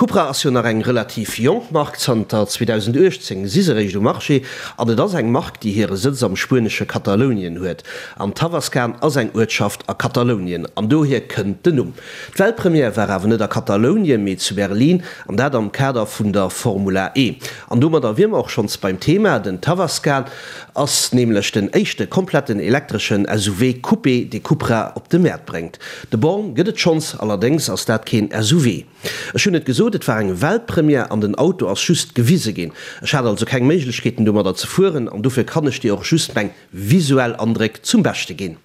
Cupra ass jo nach eng relativ jonk Mark, zanter 2018 si se réischt um Marché an et ass eng Mark, déi hire Sëtz am spuenesche Katalounien huet. An Tavascan ass eng Uertschaft a Katalounien an dohier kënnt den Numm. D'Weltpremière war awer net a Katalounien, mee zu Berlin an dat am Kader vun der Formula E. An domadder wier mer och schonns beim Thema, Den Tavascan ass nämlech den éischte kompletten elektreschen SUV Coupé, dee Cupra op de Mäert bréngt. De Born gëtt et schonns, allerdéngs ass dat keen SUV. Ech hunn et gesot, et war eng Weltpremière an den Auto ass just gewise ginn. Ech hat also keng Méiglechkeeten domadder ze fueren an dofir kann ech dir och just meng visuell Andréck zum Beschte ginn.